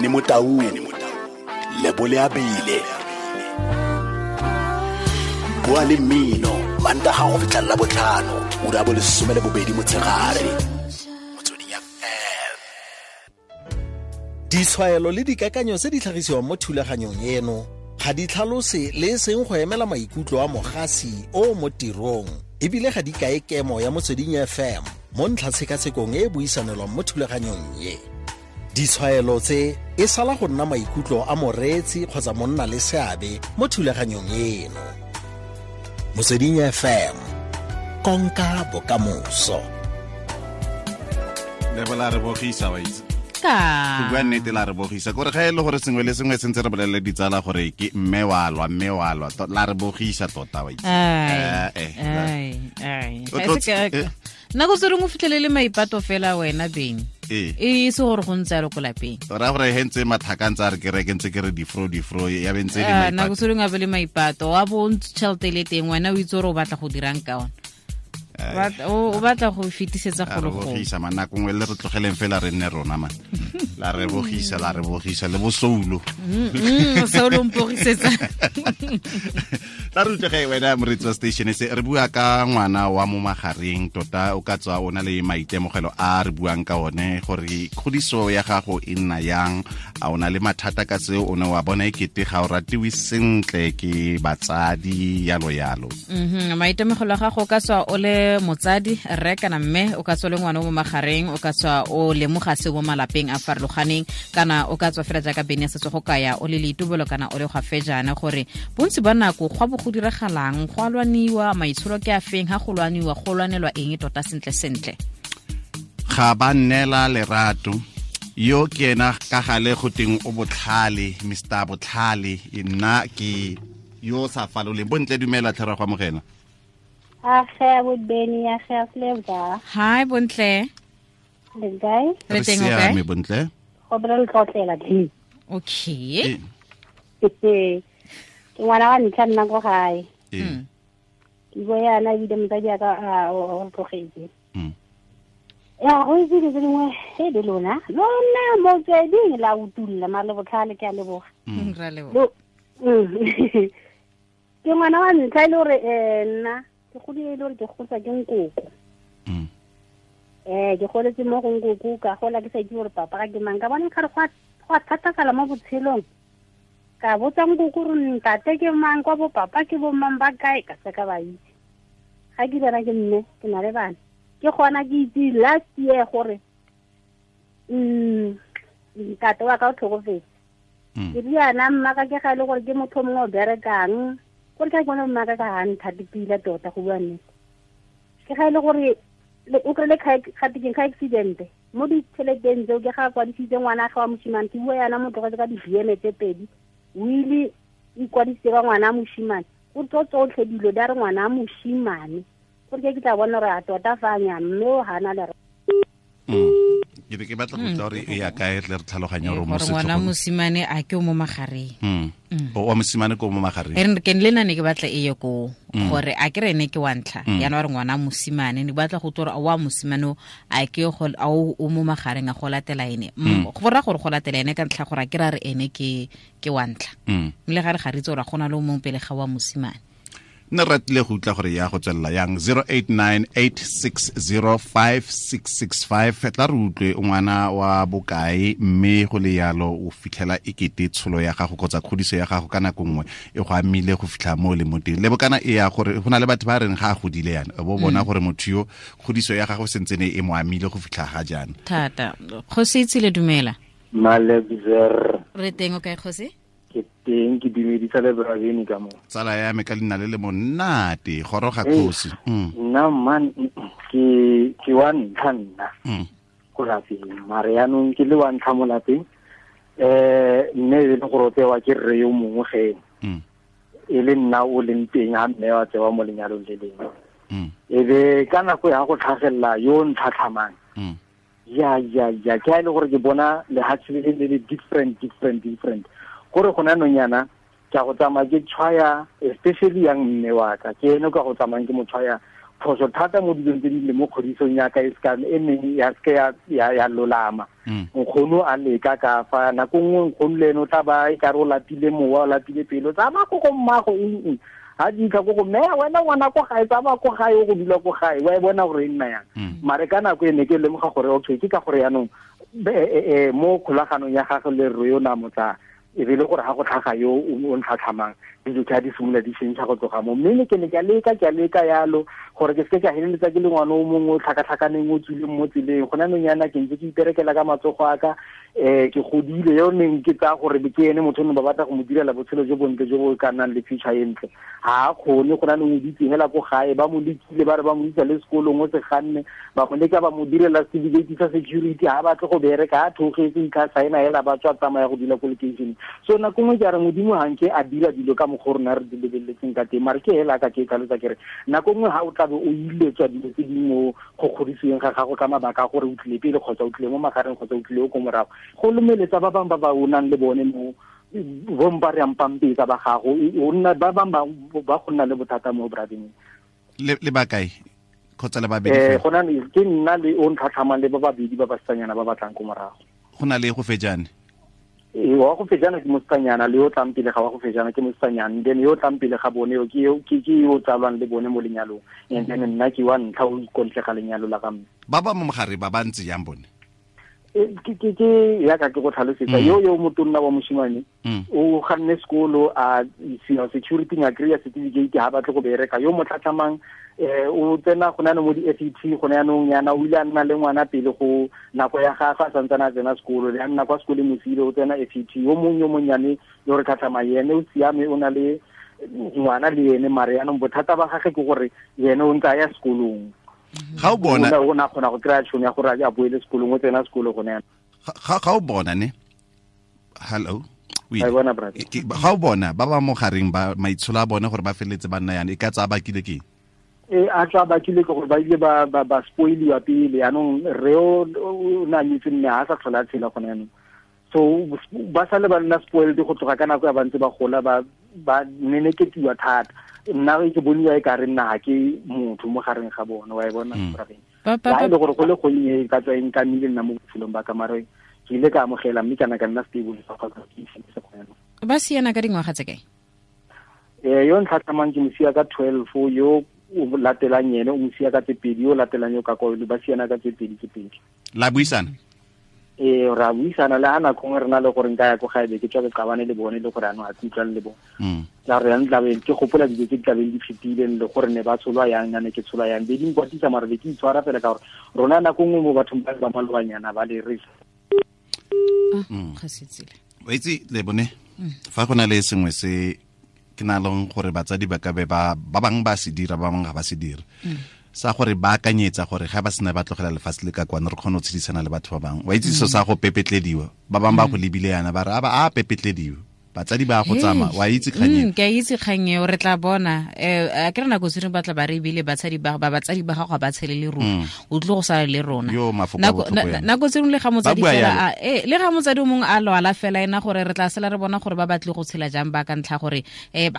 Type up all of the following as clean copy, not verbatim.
Benny Motaung, Lebole Abile. Bua le mmino Mantaga go fitlha la botlhano, ura bo 12 motshegare. Motsweding FM. Ditshwaelo le dikakanyo tse di tlhagisiwang mo thulaganyong eno ga di tlhalose le e seng go emela maikutlo a mogasi o mo tirong, ebile ga di kae kemo ya Motsweding FM mo ntlhatshekatshekong e e buisanelwang mo thulaganyong ye. Ditshwaelo tse e sala go nna maikutlo a moreetsi kgotsa monna le seabe mo thulaganyong eno. Motsweding FM, konka bokamoso. Lebola re bogisa wa itse. Go bua nnete la re bogisa kore ga e le gore sengwe le sengwe sentse re bolelele ditsala gore ke mme wa lwa, mme wa lwa, la re bogisa tota wa itse. Nako tse dingwe o fitlhelele maipato fela wena beng. E se gore go ntse yalo ko lapeng. Ra gore he ntse mathaka ntse a re ke reke ntse ke re difro ya be ntse le maipato. Nako tse dingwe a be le maipato, wa bo tšhelete le teng wena o itse gore o batla go dirang ka ona. O batla go fetisetsa go le go. Bogisa man, nako nngwe le re tlogeleng fela re nne rona man. La re bogisa, la re bogisa le bosoulo. Soulo mpogisetsa. Tla re utlwe wena moretsi wa station se re bua ka ngwana wa mo magareng tota o ka tswa o na le maitemogelo a re buang ka one gore kgodiso ya gago e nna yang, a o na le mathata ka seo, o ne wa bona ekete ga o ratiwe sentle ke batsadi yalo yalo. Maitemogelo a gago o ka tswa o le motsadi rre kana mme, o ka tswa le ngwana o mo magareng, o ka tswa o lemoga seo mo malapeng a farologaneng, kana o ka tswa fela jaaka Bene a setse go kaya o le leitobolo kana o le gwa fejana, gore bontsi ba nako go bo go diragalang, go a lwaniwa, maitsholo ke a feng, ha go lwaniwa go lwanelwa eng tota sentle sentle. Ga ba nnela lerato yo ke ena ka gale go teng o botlhale, Mr Botlhale, nna ke yo sa faloleng. Bontle dumela tlhera go amogela. Age bo Benny, age Flavor. Hi Bontle. Le kae? Re teng o kae? Bontle. Go bra le tlotlela di. Okay. Ke ngwana wa ntlha nna ko gae. Ke bo yana ebile motsadi a ka o tlogetse. Ya go itse dilo tse dingwe e le lona. Lona motsweding la utulla mare le botlhale ke a leboga. Ra leboga. Ke ngwana wa ntlha e le gore nna ke godile e le gore ke gotswa ke nkoko. Ke goletse mo go nkoko, ka gola ke sa itse gore papa ga ke mang, ka bona kgare go a thatafala mo botshelong. Ka botsa nkoko gore ntate ke mang, kwa bo papa ke bo mang ba kae, ka se ka ba itse. Ga ke bana ke mme, ke na le bana. Ke gona ke itse last year gore ntate wa ka o tlhokofetse. Ke riana mma ka ke ga e le gore ke motho mongwe o berekang, gore ke bona mma ka ga nthate pila tota go bua nnete. Ke ga e le gore o kry-ile gatekeng ka accident mo ditšheleteng tseo, ke ga kwadisitse ngwana ga wa moshimane, ke bua yana mo tlogetse ka di-BM tse pedi, o ile ikwadisitse ka ngwana a moshimane, o tlo tsotlhe dilo di a re ngwana a moshimane, gore ke tla bona gore a tota fa nya mme o hana le. Ke be ke batla go tla gore e ya kae tle re tlhaloganye gore mo ngwana mosimane a ke o mo magareng. O wa mosimane ke o mo magareng. E re ke le nna ne ke batla e ye ko gore a ke re ne ke wa ntlha, yana wa re ngwana mosimane ne batla go tla gore wa mosimane a ke go a o mo magareng a go latela ene. Go ra gore go latela ene ka ntlha gore a ke ra re ene ke wa ntlha. Le ga re ga re itse gore gona le o mongwe pele ga wa mosimane. Nne ratile go utlwa gore ya go tswelela yang. 0898605665 tla re utlwe ngwana wa bokae, mme go le yalo o fitlhela ekete tsholo ya gago kgotsa kgodiso ya gago ka nako nngwe e go amile go fitlha mo le mo teng. Le bokana e ya gore go na le batho ba reng ga a godile yana, bo bona gore motho yo kgodiso ya gago sentse ne e mo amile go fitlha ga jaana. Thata. Kgosi Itsile dumela. Malebzer. Re teng o kae Kgosi? Ke teng, ke dumedisa le Braveni ka mo. Tsala ya me ka leina le le monate, goroga Kgosi. Nna man ke wa ntlha nna. Ko lapeng, mare yanong ke le wa ntlha mo lapeng. Mme e le gore o tsewa ke rre yo mongwe ge. E le nna o leng teng ha mme wa tsewa mo lenyalong le lengwe. E be ka nako ya go tlhagelela yo ntlhatlhamang. Ya ke a le gore ke bona lehatshe le le different. Gore gona nonyana ke a go tsamaya ke tshwaya, especially yang mme wa ka, ke ene ka go tsamayang ke mo tshwaya Phoso thata mo dilong tse di le mo kgodisong ya ka e ska e neng ya ske ya lolama. Nkgono a leka ka fa nako nngwe nkgono le ene o tla ba e ka re o lapile mowa, o lapile pelo, tsamaya ko go mmago eng ha di tla ko go mme wena ngwana ko gae, tsamaya ko gae, o go dula ko gae, wa e bona gore e nna yang. Mare ka nako e ne ke lemoga gore okay ke ka gore yaanong mo kgolaganong ya gagwe le rre yo na motsa e be le gore ga go tlhaga yo o ntlhatlhamang dilo tsa di simolola di šentšha go tloga mo. Mme ne ke ne ke a leka yalo gore ke seke ka feleletsa ke le ngwana o mongwe o tlhakatlhakaneng o tswileng mo tseleng. Gona nong yana ke ntse ke iperekela ka matsogo a ka, ke godile yo neng ke tsaya gore ke ene motho o ne ba batla go mo direla botshelo jo bontle jo bo ka nnang le future e ntle. Ga a kgone go na le o ditse hela ko gae, ba mo lekile ba re ba mo isa le sekolong o se ganne, ba mo leka ba mo direla certificate sa security, ha batle go bereka, a thogetse itlha saena hela ba tswa tsamaya go dula ko location. So nako nngwe ke a re Modimo ha nke a dira dilo ka mokgwa o rona re di lebeletseng ka teng, mare ke hela ka ke tlhalosa ke re nako nngwe ha o tlabe o iletswa dilo tse dingwe mo go kgodisiweng ga gago ka mabaka a gore o tlile pele kgotsa o tlile mo magareng kgotsa o tlile ko morago, go lomeletsa ba bangwe ba ba o nang le bone mo bompa re ampampetsa ba gago, o nna ba bangwe ba go nna le bothata mo brading. Le ba kae kgotsa le babedi fela? Go na le ke nna le o ntlhatlhamang le ba babedi ba basetsanyana ba batlang ko morago. Go na le go fejane? Wa go fejana ke mosetsanyana, le yo tlang pele ga wa go fejana ke mosetsanyana, then yo tlang pele ga bone yo ke yo tsalwang le bone mo lenyalong, and then nna ke wa ntlha o ikontle ga lenyalo la ga mme. Ba ba mo mogare ba ba ntse jang bone? Ke ya ka ke go tlhalosetsa yo motonna wa moshimane o ganne sekolo a security nga kry-a certificate ha batle go bereka. Yo mo tlhatlhamang o tsena go na le mo di-FET gone yanong yana, o ile a nna le ngwana pele go nako ya gagwe a santsane a tsena sekolo, le a nna kwa sekoleng mosile o tsena FET. Yo mongwe yo monnyane yo re tlhatlhamang ene o siame, o na le ngwana le ene, mare yanong bothata ba gagwe ke gore ene o ntse a ya sekolong. Ga o bona o na kgona go kry-a tšhono ya gore a boele sekolong, o tsena sekolo gone yana. Ga o bona ne, hello, ga o bona ba ba mo gareng ba maitsholo a bone gore ba feleletse ba nna yana, e ka tsaya bakile ke eng? A tswa bakile ke gore ba ile ba spoiliwa pele. Yanong rre o na nyetse mme ha sa tlhola a tshela gone yanong, so ba sale ba nna spoiled go tloga ka nako ya ba ntse ba gola, ba neneketiwa thata. Nna ke boniwa e ka re nna ga ke motho mo gareng ga bone, wa e bona brabeng. La e le gore go le gonnye ka tswa e nkamile nna mo botshelong ba ka, mare ke ile ka amogela mme kana ka nna stable fa ga ke se go yana. Ba siana ka dingwaga tse kae? Yo ntlhatlhamang ke mosia ka 12, yo o latelang ene o mosia ka tse pedi, yo latelang yo ka kwa ba siana ka tse pedi tse pedi. La buisana? Ra buisana le ha nako nngwe re na le gore nka ya ko gae be ke tswa ke qabane le bone le gore ano a utlwane le bone. Tla re yang tlabe ke gopola dilo tse di tlabeng di fetileng le gore ne ba tsholwa yang, nna ne ke tsholwa yang, be di nkwatisa mare be ke itshwara fela ka gore rona nako nngwe mo bathong ba ba malobanyana ba le re. Ga se tsile. Wa itse le bone fa go na le sengwe se ke na leng gore batsadi ba ka be ba bangwe ba se dira, ba bangwe ga ba se dire. Sa gore ba akanyetsa gore ga ba sena ba tlogela lefatshe le ka kwana re kgone go tshedisana le batho ba bangwe. Wa itse so sa go pepetlediwa, ba bangwe ba go lebile yana ba re a pepetlediwa, batsadi ba go tsamaya. Wa itse kgang eo? Ke a itse kgang eo, re tla bona. A ke re nako tse ba tla ba re ebile batsadi ba batsadi ba gago ga ba tshele le rona, o tlile go sala le rona. Nako tse dingwe le ga motsadi fela le ga motsadi o mongwe a lwala fela ena gore re tla sala re bona gore ba batle go tshela jang ba ka ntlha gore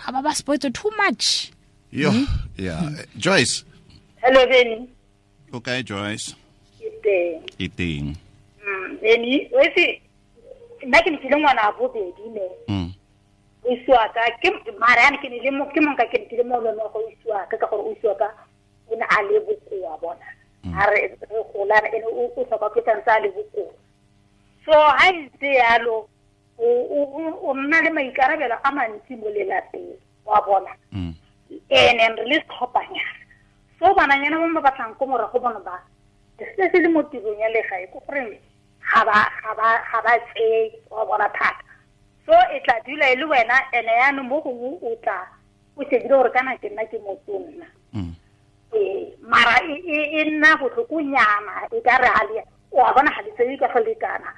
ba spoiled too much. Yo, yeah. Joyce. Hello, Benny. Okay, Joyce. Ke teng. Ke teng. Benny, o itse nna ke ne ke le ngwana a bobedi ne. O isiwa ka ke mara yana ke ne le mo ke monka ke ne ke le mo lone go isiwa ka gore o isiwa ka o ne a le bokoa bona. A re re golana ene o tlhoka ke tsantsa a le bokoa. So ha ntse yalo o nna le maikarabelo a mantsi mo lelapeng wa bona. Ene re le setlhophanyana. So bananyana mo ba batlang ko morago bona ba se se le mo tirong ya legae ko gore ga ba tseye wa bona thata. So e tla dula e le wena ene yaanong mo gongwe o tla o shebile gore kana ke nna ke motonna. Mara e nna botlhokonyana e ka re ga le o a bona ga le tseye ka go lekana.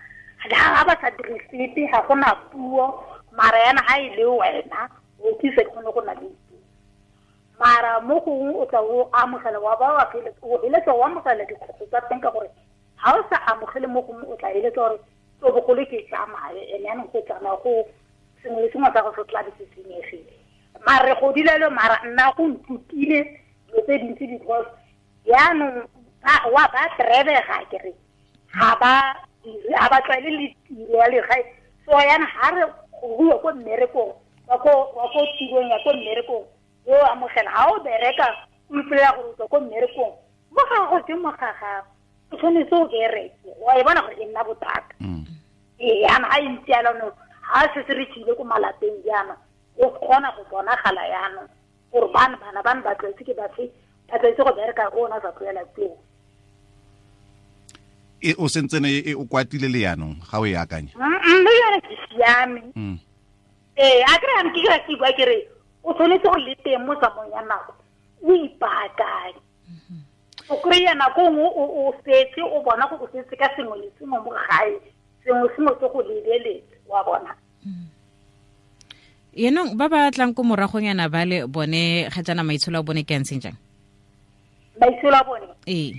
Ga ba sa dire sepe, ga gona puo, mara yana ga e le wena o tlise kgone go na le. Mara mo gongwe o tla o amogela wa ba wa o eletsa o amogela dikgwetlho tsa teng ka gore ga o sa amogele mo gongwe o tla eletsa gore o bogolo ke tsamaye ene yanong go tsamaya go sengwe le sengwe sa go se tla be se senyegile. Mara re godile le mara nna go nthutile dilo tse dintsi because Yaanong wa ba trebega ke re ga ba tlwaele le tiro ya legae. So yana ga re go bua ko mmerekong wa ko tirong ya ko mmerekong o amogela ga o bereka o ipolela gore o tswa ko mmerekong mo ga go ke mo ga gago o tshwanetse o bereke wa e bona gore e nna bothata. Ee, yana ga e ntse yalo no ga se se re tsile ko malapeng jaana o kgona go bonagala yaanong gore bana ba tlwaetse ke bafe ba tlwaetse go bereka ko ona sa tlwaela teo. E o sentsene e o kwatile le yaanong ga o e akanya? Mme yone ke siame. Ee, a kry ke kry ke bua ke re o tshwanetse go le teng mo tsamayong ya nako o ipaakanye. O kry-a nako nngwe o setse o bona gore o setse ka sengwe le sengwe mo gae, sengwe sengwe se go lebeletse wa bona. Yenong ba ba tlang ko moragonyana ba le bone ga jaana maitsholo a bone ke a ntseng jang? Maitsholo a bone? Ee.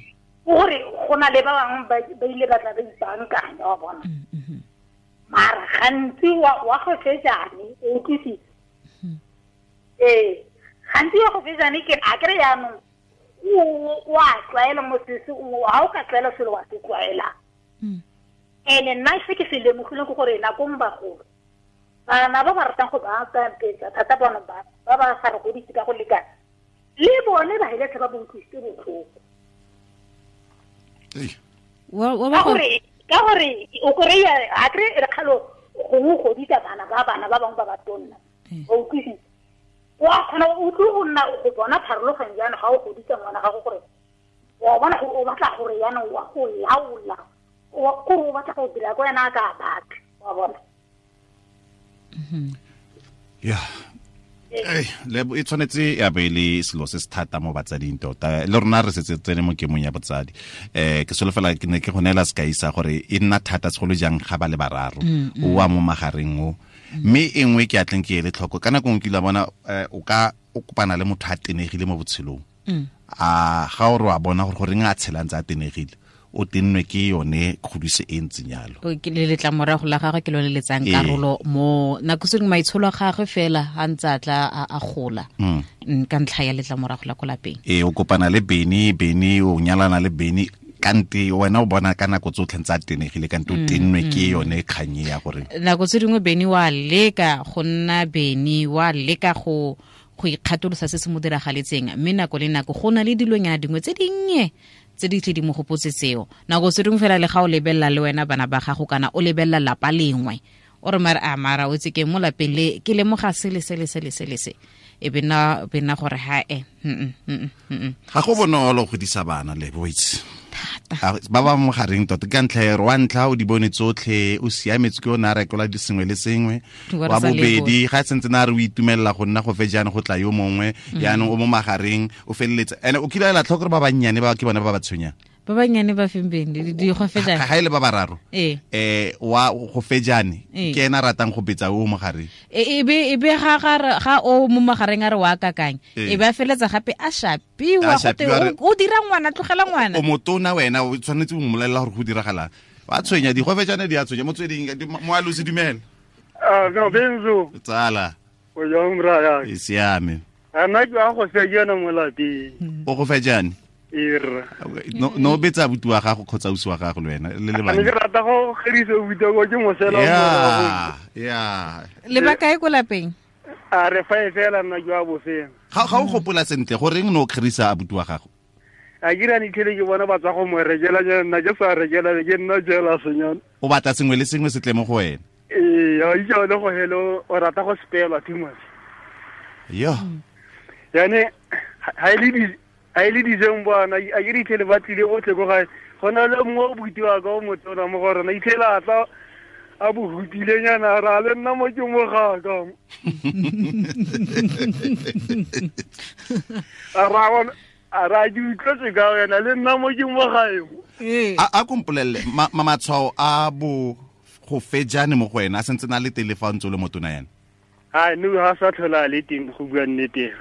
Gore go na le ba bangwe ba ile ba tla ba ipaakanya wa bona. Mara gantsi wa go fejane o utlwisitse. Ee, gantsi wa go fejane ke a kry yaanong o a tlwaela mo sese ga o ka tlwaela selo wa se tlwaela. Ene nna se ke se lemogileng ke gore nakong bagolo bana ba ba ratang go baakanyetsa thata bona ba ba sa re godise ka go lekana le bone ba heletsa ba utlwisitse botlhoko. Ka gore o kry-a a kry e re kgalo gongwe o godisa bana ba bangwe ba ba tonna o utlwisitse wa kgona o utlwe go nna go bona pharologanyo jaanong ga o godisa ngwana gago gore wa bona gore o batla gore jaanong wa go laola kore o batla go dira ko wena a ka batla wa bona. Yeah. E tshwanetse ya be le selo se se thata mo batsading tota le rona re setse tsene mo kemong ya botsadi. Ke solofela ke ne ke go neela sekai sa gore e nna thata segolo jang ga ba le bararo o wa mo magareng o mme e nngwe ke atleng ke ele tlhoko ka nako nngwe ke ile bona o ka o kopana le motho a tenegile mo botshelong a ga o re wa bona gore goreng a tshelang tse a tenegile o tennwe ke yone kgodiso e ntseng jalo. Ke le letlamorago la gagwe ke lone le tsang karolo mo nako se dingwe maitsholo a gagwe fela a ntse a tla a gola ka ntlha ya letlamorago la ko lapeng. Ee, o kopana le Beni o nyalana le Beni kante wena o bona ka nako tsotlhe ntse a tenegile kante o tennwe ke yone kganye ya gore nako tse dingwe Beni wa leka go nna Beni wa leka go ikgatolosa se se mo diragaletseng mme nako le nako go na le dilonyana dingwe tse dinnye tse di tle di mo gopotse tseo. Nako tse dingwe fela le ga o lebelela le wena bana ba gago kana o lebelela lapa lengwe o re mara a mara o tse ke mo lapeng le ke lemoga sele sele sele sele se e bena gore ha e ga go bonolo go godisa bana le boitse ba ba mo gareng tota ka ntlha ya wa ntlha o di bone tsotlhe o siametse ke o ne a rekola di sengwe le sengwe wa bobedi ga sentse na re o itumelela go nna go fejane go tla yo mongwe yaanong o mo magareng o feleletse ene o kile ela tlhoko gore ba bannyane ba ke bone ba ba tshwenyang ba bannyane ba feng beng di go fejane ga ile ba bararo wa go fejane ke ena ratang go betsa o mo gareng e be ga o mo magareng a re wa kakang e ba feletsa gape a shapiwa go o dira ngwana tlogela ngwana o motona wena o tshwanetse o mmolelela gore go diragala ba tshwenya di go fejane di a tshwenya motsweding mo a lose dumela no benzo tsala o jang bra ya e siame ana ke a go fejana mo lapeng o go fejane no betsa abuti wa gago kgotsa ausi wa gago le wena le le bana ke rata go gerisa abuti wa ke mosela ya le ba kae ko lapeng a re fa e fela nna ke wa bofeng ga o gopola sentle goreng no kgerisa abuti wa gago a ke rane tlhele ke bona ba tswa go mo rekela nna ke sa rekela ke nna jela senyana o batla sengwe le sengwe se tle mo go wena ee a itse le go hello o rata go spelwa too much yo yane ha ile dijeng bona a ke ditlhele ba tlile botlhe ko gae go na le mongwe o butiwa ka o motona mo go rona itlhele a tla a bohutilenyana ra le nna mo ke mo gaka a ra ke utlwetse ka wena le nna mo ke mo gae a kompolelele matshwao a bo go fejane mo go wena a sentse na le tele fa ntse o le motona yana a no ga sa tlhola le teng go bua nnete.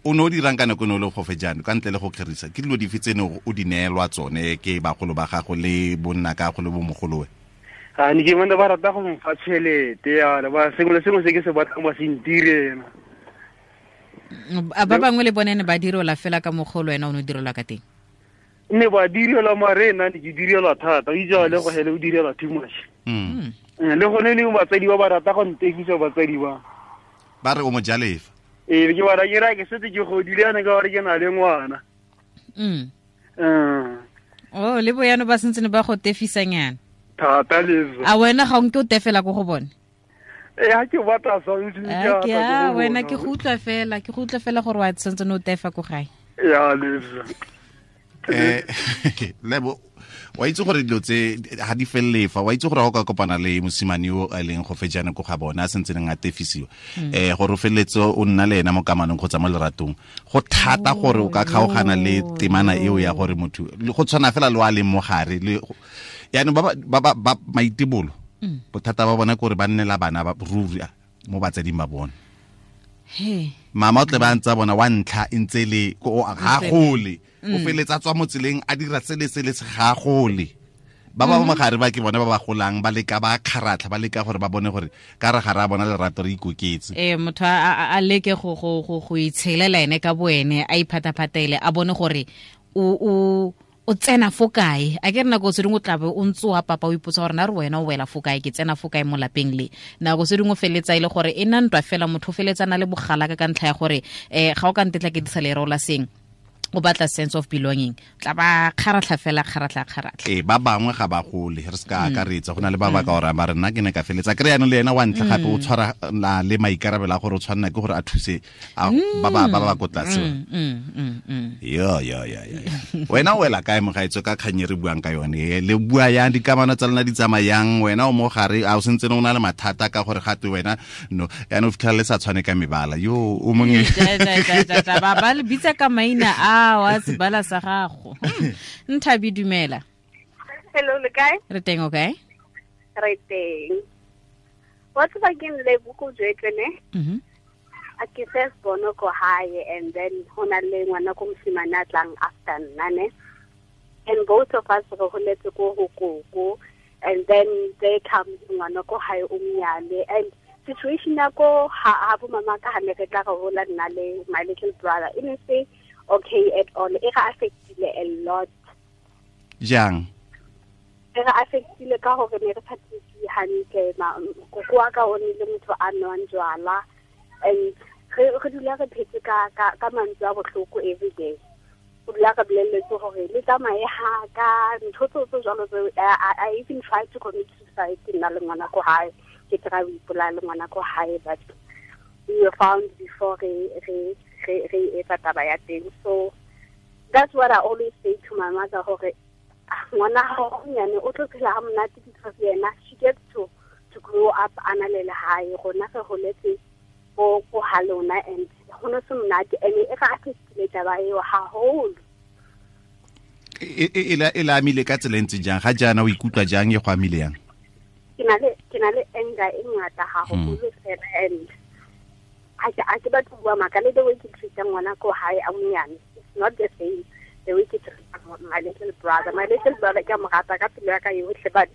O ne o dirang ka nako ne o le go fejane ka ntle le go kgerisa ke dilo dife tse ne o di neelwa tsone ke bagolo ba gago le bonna ka go le bomogolowe? A ne ke bona ba rata go mfa tšhelete ya ba sengwe le sengwe se ke se batlang ba se ntirela. A ba bangwe le bone ne ba direlwa fela ka mogolo wena o ne o direlwa ka teng? Ne ba direlwa mare nna ne ke direlwa thata, o itse le go hele o direlwa too much. Le gone le batsadi ba ba rata go ntekisa batsadi ba. Ba re o mo jalefa. Ee, ke ba ra ke setse ke godile yana ka gore ke na le ngwana. Oh, le boyano ba sentse ne ba go tefisanyana. Thata le. A wena ga o nke o tefela ko go bone? Eh, ha ke batla something ke a wena ke go utlwa fela gore wa sentse no tefa ko gae. Ya le. Lebo wa itse gore dilo tse ha di fellefa, wa itse gore ha o ka kopana le mosimane o a leng go fejana ko ga bona a sentse neng a tefisiwa, gore o feletse o nna le ena mo kamanong kgotsa mo leratong, go thata gore o ka kgaogana le temana eo ya gore motho go tshwana fela le wa leng mo gare le yaanong ba maitebolo bothata ba bona ke gore ba nnela bana ba ruri mo batsading ba bona. Mama o tle ba ntse bona wa ntlha e ntse le ga gole, o feletsa tswa mo tseleng a dira sele sele se ga gole. Ba ba mo gare ba ke bona ba ba golang ba leka ba kgaratlha ba leka gore ba bone gore ka re gare a bona lerato re ikoketse. Motho a leke go itshelela ene ka boene, a iphataphatele, a bone gore o tsena fo kae. A ke re nako tse dingwe o tlabe o ntse wa papa o ipotsa gore na re wena o wela fo kae, ke tsena fo kae mo lapeng le. Nako tse dingwe o feletsa e le gore e nna ntwa fela, motho o feletsa na le bogalaka ka ntlha ya gore ga o ka ntetla ke disa lereo la seng, o batla sense of belonging, tla ba kgaratlha fela, kgaratlha. Ba bangwe ga ba gole, re se ka akaretsa, go na le ba ba ka ora ba re nna ke ne ka feletsa kry yanong le ena wa ntlha gape o tshwara le maikarabelo a gore o tshwanela ke gore a thuse ba ba ko tlase. Yo. Wena o wela kae mogaetso ka kgang e re buang ka yone? Le bua yang, dikamano tsa lona di tsamayang, wena o mo gare a o sentse o na le mathata ka gore gate wena no yaanong o fitlhela le sa tshwane ka mebala yo o mongwe ba le bitsa ka maina a wa sebala sa gago. Nthabi, dumela. Hello, le kae? Re teng, o kae? Re teng. Wa tseba ke le buku jwetse ne? A ke first born ko hae, and then hona le ngwana ko mosimane a tlang after nna ne. And both of us re holetse ko ho koko, and then they come ngwana ko hae o mnyane, and situation ya ko ha bo mama ka ha ne re tla re hola nna le my little brother e ne se okay at all. E ga affectile a lot. Jang? E ga affectile ka gore ne re sa tsitsi hantle, koko wa ka o ne le motho a nwang jwala, and re dula re phetse ka mantswe a bohloko every day. O dula re bolelletse gore le tsamaye ha ka ntho tse jwalo tse. I even tried to commit suicide nna le ngwana ko hae, ke try ho ipolaya le ngwana ko hae, but we were found before re etsa taba ya teng. So that's what I always say to my mother, hore ngwana hao nyane o tlo phela ha monate because yena she gets to grow up a na le lehae, rona re holetse ko ha lona, and ho no se monate, and e ga affectile taba eo haholo. E la amile ka tsela e ntse jang? Ga jaana o ikutlwa jang, e go amile yang? Ke na le anger e ngata haholo fela, and I ke batho bua maka le the way ke treat ngwana ko hae a monyane, it's not the same the way ke treat my little brother. My little brother ke mo rata ka pelo ya ka yotlhe, but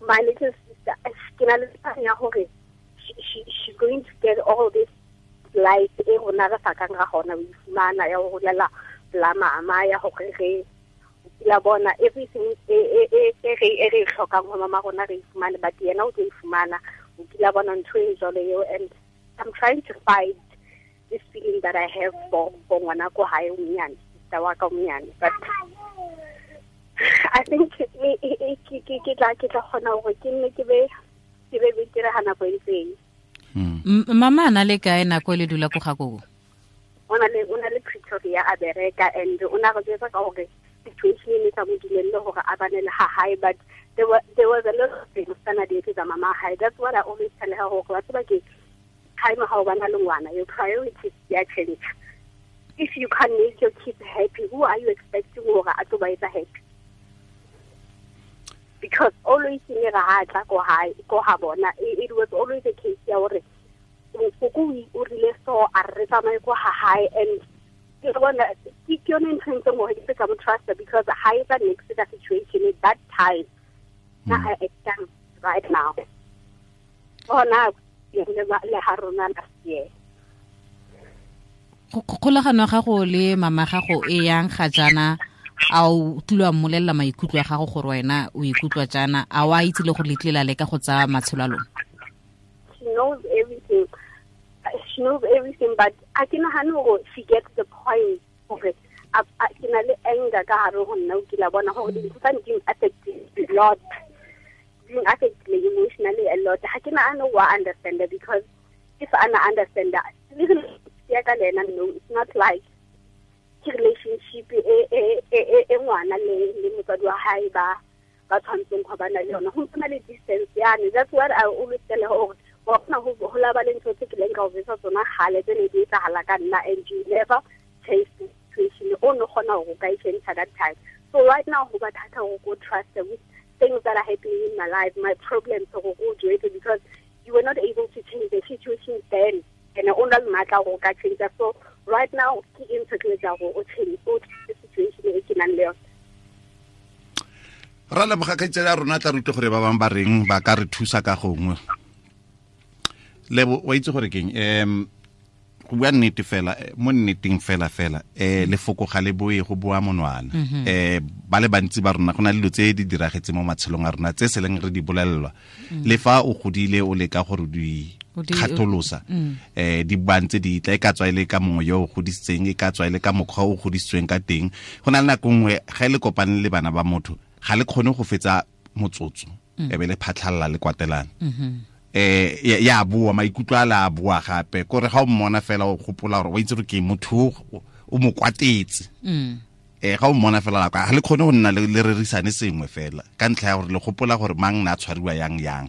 my little sister ke na le tsaya ya hore she's going to get all this life e rona re sa kang ra gona o ifumana ya ho holela la mama ya hore re la bona everything e re hlokang ho mama rona re ifumane, but yena o tlo ifumana o kila bona ntho e jwalo eo. And I'm trying to fight this feeling that I have for ngwana ko hae o monyane, sister wa ka o monyane, but I think ke tla kgona hore ke nne ke be betere ha nako e ntseng. Mama a na le kae nako e le dula ko ga koko? O na le Pretoria a bereka, and o na re jwetsa ka hore situation e ne sa mo dumelle hore a bane le ha hae, but there was a lot of things tsana di etsetsa mama hae. That's what I always tell her, hore wa tseba ke time ha o bana le ngwana, your priorities ya change. If you can't make your kids happy, who are you expecting hore a tlo ba etsa happy? Because always ne ra ha tla ko hae ko ha bona, it was always a case ya hore koko o rile so a re tsamaye ko ha hae, and ke bona ke yone ntho e ntseng hore ke ka mo trust, because ha e tsa next the situation at that time na I acting right now. Bona le ha rona last year. Kgolagano ya gago le mama gago e yang ga jaana, a o tlile wa mmolelela maikutlo a gago gore wena o ikutlwa jaana, a o a itse le gore le tlile la leka go tsaya matshelo a lona? She knows everything. She knows everything, but a ke nagane gore she gets the point gore ke na le anger ka gare go nna, o kile bona gore dintho tsa di affect a lot, di affect me emotionally a lot. Ga ke nagane wa understand, because if I understand that, ya ka le ena, no, it's not like ke relationship e ngwana le motswadi wa hae ba tshwantseng go bana le yona. Go ntse le distance yane. That's what I always tell her, gore wa kgona go laba le ntho tse ke leng ka o betsa tsona gale tse ne di etsagala ka nna, and you never change the situation. O no kgona go ka e change that time. So right now go ba thata go go trust with things that are happening in my life, my problems, go go do it, because you were not able to change the situation then, and o na le maatla go ka change. So right now ke eng se ke etsa go o change o situation e ke nang le yone. Ra leboga kgaitsedi ya rona, tla rute gore ba bangwe ba reng ba ka re thusa ka gongwe. Lebo, wa itse gore keng, go bua nnete fela, mo nneteng fela fela, lefoko ga le boe go boa monwana. Ba le bantsi ba rona go na le dilo tse di diragetse mo matshelong a rona tse se leng re di bolelelwa. Le fa o godile o leka gore di kgatholosa, di bantse di tla, e ka tswa e le ka mongwe yo o godisitseng, e ka tswa e le ka mokgwa o godisitsweng ka teng. Go na le nako nngwe ga e le kopane le bana ba motho, ga le kgone go fetsa motsotso, e be le phatlhalla le kwatelana. Ya boa, maikutlo a la boa gape, kore ga o mmona fela o gopola gore wa itse gore ke motho o mo kwatetse. Ga o mmona fela la ga le kgone go nna le rerisane sengwe fela ka ntlha ya gore le gopola gore mang na tshwariwa yang yang.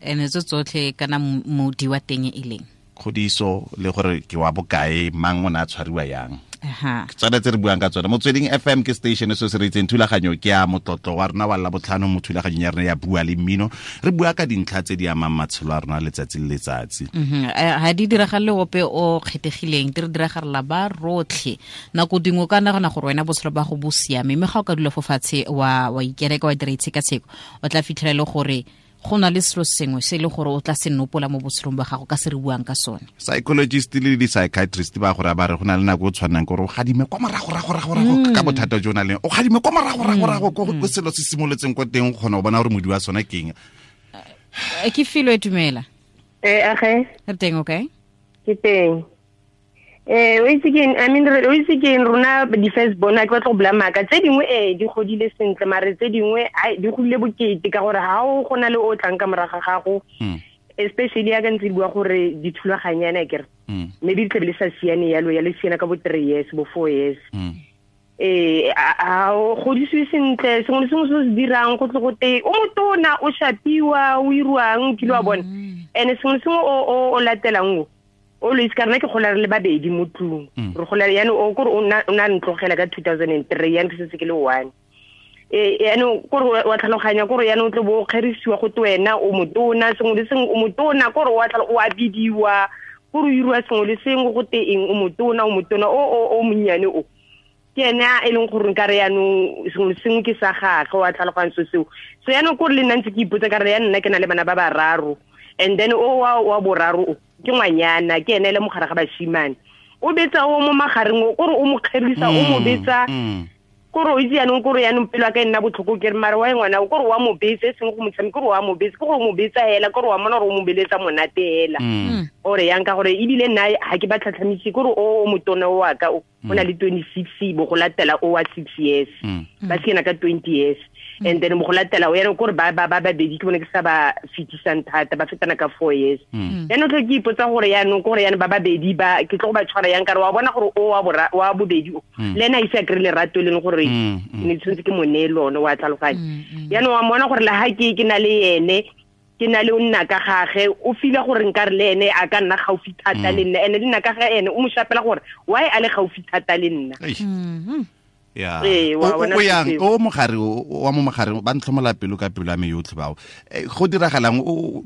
Ene tso tsotlhe kana modi wa teng e leng kgodiso le gore ke wa bokae, mang o na tshwariwa yang. Ke tsone tse re buang ka tsone. Motsweding FM ke station se se re itseng thulaganyo ke ya motlotlo wa rona wa Labotlhano mo thulaganyong ya rona ya Bua le Mmino. Re bua ka dintlha tse di amang matshelo a rona letsatsi le letsatsi. Ha di diragale ope o kgethegileng, di re diragalela ba rotlhe. Nako dingwe ka nagana gore wena botshelo ba go bo siame, mme ga o ka dula fo fatshe wa ikereka wa dira itshekatsheko, o tla fitlhela le gore go na le selo sengwe se e le gore o tla se nopola mo botshelong ba gago ka se re buang ka sone. Psychologist le di-psychiatrist ba gore ba re go na le nako o tshwanang gore o gadime kwa morago rago rago rago ka bothata jo o nang le, o gadime kwa morago rago rago ko selo se simoletseng kwa teng, o kgona go bona gore modi wa sone ke eng. Ke Filwe, dumela. Age. Re teng, okay? Ke teng. O itse ke eng, I mean, o itse ke eng, rona di-first born, a ke batla go bula maaka. Tse dingwe di godile sentle, mare tse dingwe di godile bokete, ka gore ha o go na le o tlang ka morago ga gago, especially ya ka ntse di bua gore dithulaganyana akere, maybe di tlabe le sa siane yalo, ya le siana ka bo 3 years, bo 4 years. A o godisiwe sentle, sengwe le sengwe se o se dirang go tle go te o motona, o shapiwa, o iruang, kile wa bona. And sengwe le sengwe o latelang o always ka rena ke gola re le babedi mo tlung. Re gola yana o kore o na ntlogela ka 2003, yana ke setse ke le 1. Yana kore wa tlhaloganya kore yana o tle bo kgerisiwa go te wena o motona, sengwe le sengwe o motona, kore wa o a bidiwa, kore o iriwa sengwe le sengwe go te eng, o motona, o motona, o monnyane o. Ke ena e leng gore nka re yanong sengwe le sengwe ke sa gagwe, wa tlhaloganya so seo. So yanong kore le nna ntse ke ipotsa ka re ya nna ke na le bana ba bararo, and then o wa boraro o ke ngwanyana, ke ene le mogare ga bashimane, o betsa o mo magareng o, kore o mo kgerisa, o mo betsa, kore o itse yanong kore yanong pelo ya ka e nna botlhoko, ke re mare wa ngwana o, kore wa mo betsa, e seng go mo tshameka, kore wa mo betsa, ke gore o mo betsa hela, kore wa mona gore o mo beletsa monate hela. Ore yang ka gore ebile nna ha ke ba tlhatlhamise, kore o motona o wa ka o, o na le 26, bo go latela o wa 6 years, ba siana ka 20 years. And then mo go latela o yana kore ba ba babedi ke bone ke sa ba fetisang thata, ba fetana ka 4 years. Yaanong tlho ke ipotsa gore yaanong kore yana ba babedi ba ke tlo go ba tshwara yang, ka re wa bona gore o wa bobedi o le ena a ise a kry-e lerato e leng gore ne tshwanetse ke mo neye lone, wa tlhaloganya. Yaanong wa mmona gore le ha ke na le ene, ke na le o nna ka gage, o feel gore nka re le ene a ka nna gaufi thata le nna, ene le nna ka ga ene o mo shapela gore why a le gaufi thata le nna. Ya. O yang o mogare wa mo mogare ba ntlhomola pelo ka pelo ya me yotlhe bao. Go diragalang o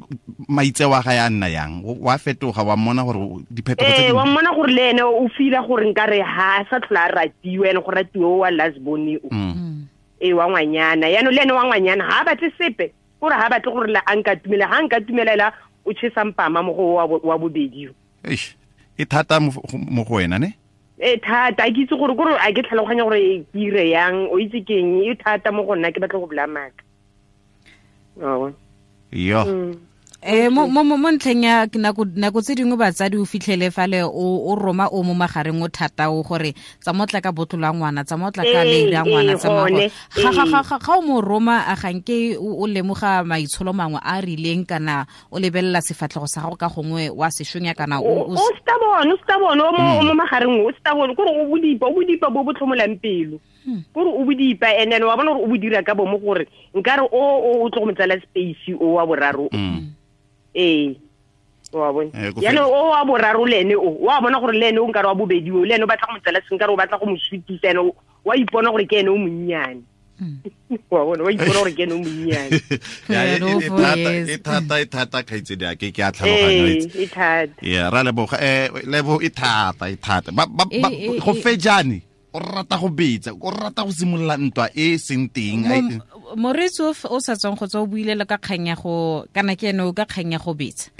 maitseo a ga ya nna yang, wa fetoga, wa mmona gore diphetogo tse wa mmona gore le ene o feel gore nka re ha sa tlhola a ratiwe, ene go ratiwe wa last born o. Wa ngwanyana. Yaanong le ene wa ngwanyana ha a batle sepe, gore ha batle gore la a nka tumela, ha nka tumelela o chesa mpama mo go wa bobedi. Eish, e thata mo go wena ne? E thata, a ke itse gore kore a ke tlhaloganya gore ke ire yang, o itse keng, e thata mo go nna, ke batla go bolaya maaka. Yo. Mo ntlheng ya nako tse dingwe batsadi o fitlhele fale o roma o mo magareng o thata o gore tsa motla ka botlo la ngwana, tsa motla ka leiri ya ngwana, tsa ga o mo roma a ganke o lemoga maitsholo mangwe a rileng kana o lebelela sefatlhego sa gago ka gongwe wa seshonya kana o stubborn, o mo magareng o stubborn, kore o bodipa bo bo tlhomolang pelo. Kore o bodipa and then wa bona gore o bo dira ka bomo gore nkare o tlo go motsala space o wa boraro. Wa bona. Yana o wa boraro le ene o wa bona gore le ene o nkare wa bobedi o le ene o batla go motsala senkare o batla go mo sutisa ene wa ipona gore ke ene o monnyane. Wa bona wa ipona gore ke ene o monnyane. Ya e thata kgaitsedi a ke a tlhaloganya e thata. Ya ra leboga lebo e thata ba go fejane o rata go betsa, o rata go simolola ntwa e seng teng. Moreetsi o sa tswang go tswa o buile le ka kgang ya go kana ke ene o ka kgang ya go betsa.